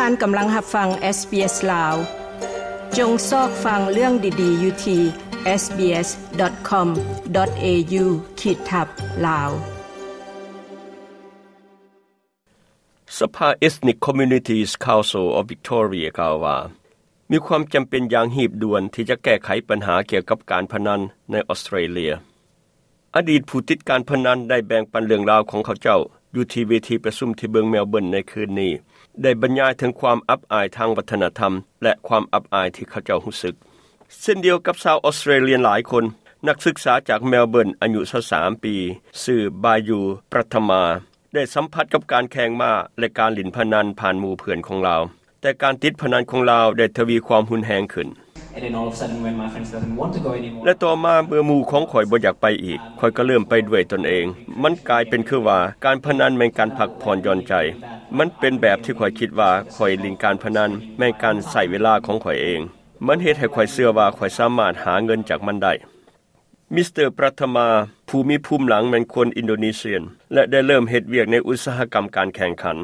ທ່ານກຳລັງຮັບຟັງ SBS ລາວ. ຈົ່ງຊອກຟັງເລື່ອງດີໆຢູ່ທີ່ SBS.com.au ຂີດທັບ ລາວ. ສະພາ Ethnic Communities Council of Victoria ກ່າວວ່າ ມີຄວາມຈຳເປັນຢ່າງຮີບດ່ວນທີ່ຈະແກ້ໄຂບັນຫາກ່ຽວກັບການພະນັນໃນອອສເຕຣເລຍ. ອະດີດຜູ້ຕິດການພະນັນໄດ້ແບ່ງປັນເລື່ອງລາວຂອງເຂົາເຈົ້າຢູ່ທີ່ເວທີປະຊຸມທີ່ເມືອງເມລເບີນໃນຄືນນີ້, ໄດ້ບັນຍາຍເຖິງຄວາມອັບອາຍທາງວັດທະນະທຳ ແລະ ຄວາມອັບອາຍທີ່ເຂົາເຈົ້າຮູ້ສຶກ. ເຊັ່ນດຽວກັບຊາວອອສເຕຣເລຍຫຼາຍຄົນ, ນັກສຶກສາຈາກເມລເບີນອາຍຸຊາວສາມປີ ຊື່ ບາຢູ ປະທະມາ ໄດ້ສຳຜັດກັບການແຂ່ງມ້າ ແລະ ການຫຼິ້ນພະນັນຜ່ານໝູ່ເພື່ອນຂອງລາວ, ແຕ່ການຕິດພະນັນຂອງລາວໄດ້ທະວີຄວາມຮຸນແຮງຂຶ້ນ. And then all of a sudden, when my friends doesn't want to go anymore, ແລະ ຕໍ່ມາເມື່ອໝູ່ຂອງຂ້ອຍບໍ່ຢາກໄປອີກ, ຂ້ອຍກໍເລີ່ມໄປດ້ວຍຕົນເອງ. ມັນກາຍເປັນຄືວ່າການພະນັນແມ່ນການພັກຜ່ອນຢ່ອນໃຈ. ມັນເປັນແບບທີ່ຂ້ອຍຄິດວ່າຂ້ອຍຫຼິ້ນການພະນັນແມ່ນການໃຊ້ເວລາຂອງຂ້ອຍເອງ. ມັນເຮັດໃຫ້ຂ້ອຍເຊື່ອວ່າຂ້ອຍສາມາດຫາເງິນຈາກມັນໄດ້. ມິສເຕີ ປະທະມາ ຜູ້ມີພູມຫຼັງແມ່ນຄົນອິນໂດນີເຊຍ ແລະ ໄດ້ເລີ່ມເຮັດວຽກໃນອຸດສາຫະກຳການແຂ່ງຂັນ.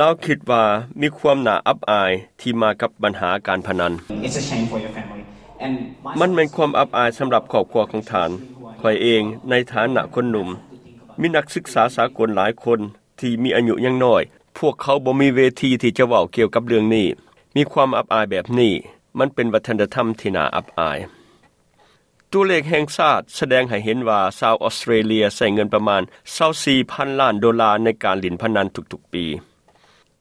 ລາວຄິດວ່າມີຄວາມໜ້າອັບອາຍທີ່ມາກັບບັນຫາການພະນັນ. It's a shame for your family. And my ມັນແມ່ນຄວາມອັບອາຍສຳລັບຄອບຄົວຂອງທ່ານ. ຂ້ອຍເອງ, ໃນຖານະຄົນໜຸ່ມ, ມີນັກສຶກສາສາກົນຫຼາຍຄົນທີ່ມີອາຍຸຍັງນ້ອຍ, ພວກເຂົາບໍ່ມີເວທີທີ່ຈະເວົ້າກ່ຽວກັບເລື່ອງນີ້. ມີຄວາມອັບອາຍແບບນີ້, ມັນເປັນວັດທະນະທຳທີ່ໜ້າອັບອາຍ. ຕົວເລກແຫ່ງຊາດສະແດງໃຫ້ເຫັນວ່າຊາວອອສເຕຣເລຍໃຊ້ເງິນປະມານຊາວສີ່ພັນລ້ານໂດລາໃນການຫຼິ້ນພະນັນທຸກໆປີ.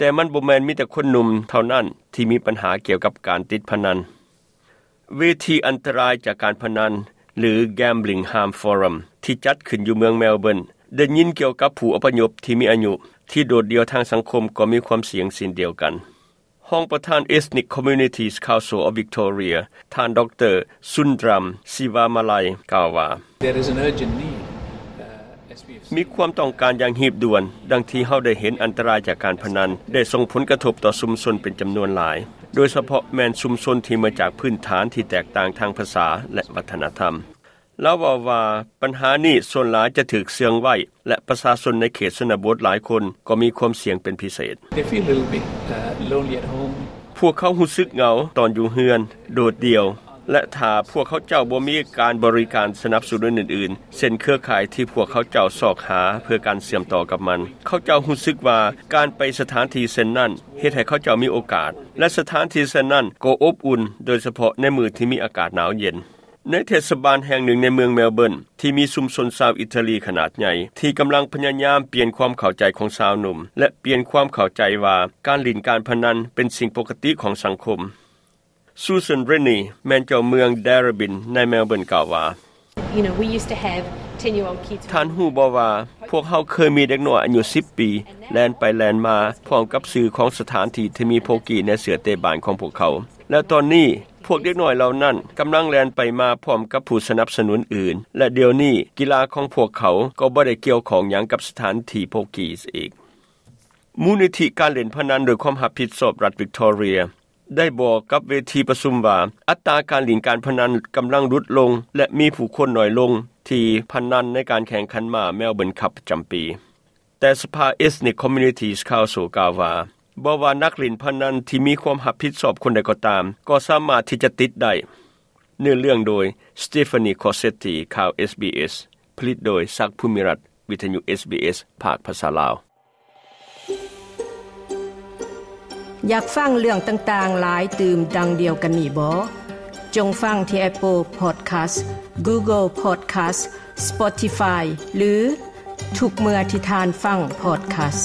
ແຕ່ມັນບໍ່ແມ່ນມີແຕ່ຄົນໜຸ່ມເທົ່ານັ້ນທີ່ມີບັນຫາກ່ຽວກັບການຕິດພະນັນ. ເວທີອັນຕະລາຍຈາກການພະນັນ ຫຼື Gambling Harm Forum ທີ່ຈັດຂຶ້ນຢູ່ເມືອງເມລເບີນ ໄດ້ຍິນກ່ຽວກັບຜູ້ອະພະຍົບທີ່ມີອາຍຸ ທີ່ໂດດດ່ຽວທາງສັງຄົມກໍມີຄວາມສ່ຽງເຊັ່ນດຽວກັນ. ຮອງປະທານ Ethnic Communities Council of Victoria ທ່ານ ດຣ. ສຸນດຣຳ ຊີວາມາໄລ ກ່າວວ່າ There is an urgent need, uh, as we have seen. ມີຄວາມຕ້ອງການຢ່າງຮີບດ່ວນ, ດັ່ງທີ່ເຮົາໄດ້ເຫັນອັນຕະລາຍຈາກການພະນັນໄດ້ສົ່ງຜົນກະທົບຕໍ່ຊຸມຊົນເປັນຈຳນວນຫຼາຍ, ໂດຍສະເພາະແມ່ນຊຸມຊົນທີ່ມາຈາກພື້ນຖານທີ່ແຕກຕ່າງທາງພາສາ ແລະ ວັດທະນະທຳ. ລາວເວົ້າວ່າ ບັນຫານີ້ສ່ວນຫຼາຍຈະຖືກເຊື່ອງໄວ້ ແລະ ປະຊາຊົນໃນເຂດຊົນນະບົດຫຼາຍຄົນກໍມີຄວາມສ່ຽງເປັນພິເສດ. They feel a little bit, uh, lonely at home. ພວກເຂົາຮູ້ສຶກເຫງົາຕອນຢູ່ເຮືອນ, ໂດດດ່ຽວ, ແລະ ຖ້າພວກເຂົາເຈົ້າບໍ່ມີການບໍລິການສະໜັບສະໜູນອື່ນໆ ເຊັ່ນເຄືອຂ່າຍທີ່ພວກເຂົາເຈົ້າຊອກຫາເພື່ອການເຊື່ອມຕໍ່ກັບມັນ, ເຂົາເຈົ້າຮູ້ສຶກວ່າການໄປສະຖານທີ່ເຊັ່ນນັ້ນເຮັດໃຫ້ເຂົາເຈົ້າມີໂອກາດ, ແລະ ສະຖານທີ່ເຊັ່ນນັ້ນກໍອົບອຸ່ນ, ໂດຍສະເພາະໃນມື້ທີ່ມີອາກາດໜາວເຢັນ. ໃນເທດສະບານແຫ່ງໜຶ່ງໃນເມືອງເມລເບີນ ທີ່ມີຊຸມຊົນຊາວອີຕາລີຂະໜາດໃຫຍ່ ທີ່ກຳລັງພະຍາຍາມປ່ຽນຄວາມເຂົ້າໃຈຂອງຊາວໜຸ່ມ ແລະ ປ່ຽນຄວາມເຂົ້າໃຈວ່າການຫຼິ້ນການພະນັນເປັນສິ່ງປົກກະຕິຂອງສັງຄົມ. ຊູຊັນ ເຣນນີ ແມ່ນເຈົ້າເມືອງ Darebin ໃນເມລເບີນ ກ່າວວ່າ You know, we used to have ten-year-old kids. ທ່ານຮູ້ບໍ່ວ່າ ພວກເຮົາເຄີຍມີເດັກນ້ອຍອາຍຸສິບປີ ແລ່ນໄປແລ່ນມາພ້ອມກັບຊື່ຂອງສະຖານທີ່ທີ່ມີໂພກີໃນເສື້ອເຕະບານຂອງພວກເຂົາ, ແລະ ຕອນນີ້ ພວກເດັກນ້ອຍເຫຼົ່ານັ້ນກຳລັງແລ່ນໄປມາພ້ອມກັບຜູ້ສະໜັບສະໜູນອື່ນ ແລະ ດຽວນີ້ກິລາຂອງພວກເຂົາກໍບໍ່ໄດ້ກ່ຽວຂ້ອງຫຍັງກັບສະຖານທີ່ໂພກີອີກ. ມູນນິທິການຫຼິ້ນພະນັນໂດຍຄວາມຮັບຜິດຊອບລັດວິກຕໍເຣຍ ໄດ້ບອກກັບເວທີປະຊຸມວ່າ ອັດຕາການຫຼິ້ນການພະນັນກຳລັງຫຼຸດລົງ ແລະ ມີຜູ້ຄົນໜ້ອຍລົງທີ່ພະນັນໃນການແຂ່ງຂັນມ້າ Melbourne Cup ປະຈຳປີ. ແຕ່ສະພາ Ethnic Communities Council ກ່າວວ່າ ບໍ່ວ່ານັກຫຼິ້ນພະນັນທີ່ມີຄວາມຮັບຜິດຊອບຄົນໃດກໍຕາມ ກໍສາມາດທີ່ຈະຕິດໄດ້. ເນື້ອເລື່ອງໂດຍ Stephanie Cossetti ຂ່າວ SBS ຜະລິດໂດຍ ສັກ ພູມິລັດ ວິທະຍຸ SBS ພາກພາສາລາວ. ຢາກຟັງເລື່ອງຕ່າງໆຫຼາຍຕື່ມດັ່ງດຽວກັນນີ້ບໍ? ຈົ່ງຟັງທີ່ Apple Podcast, Google Podcast, Spotify ຫຼື ທຸກເມື່ອທີ່ທ່ານຟັງ podcast.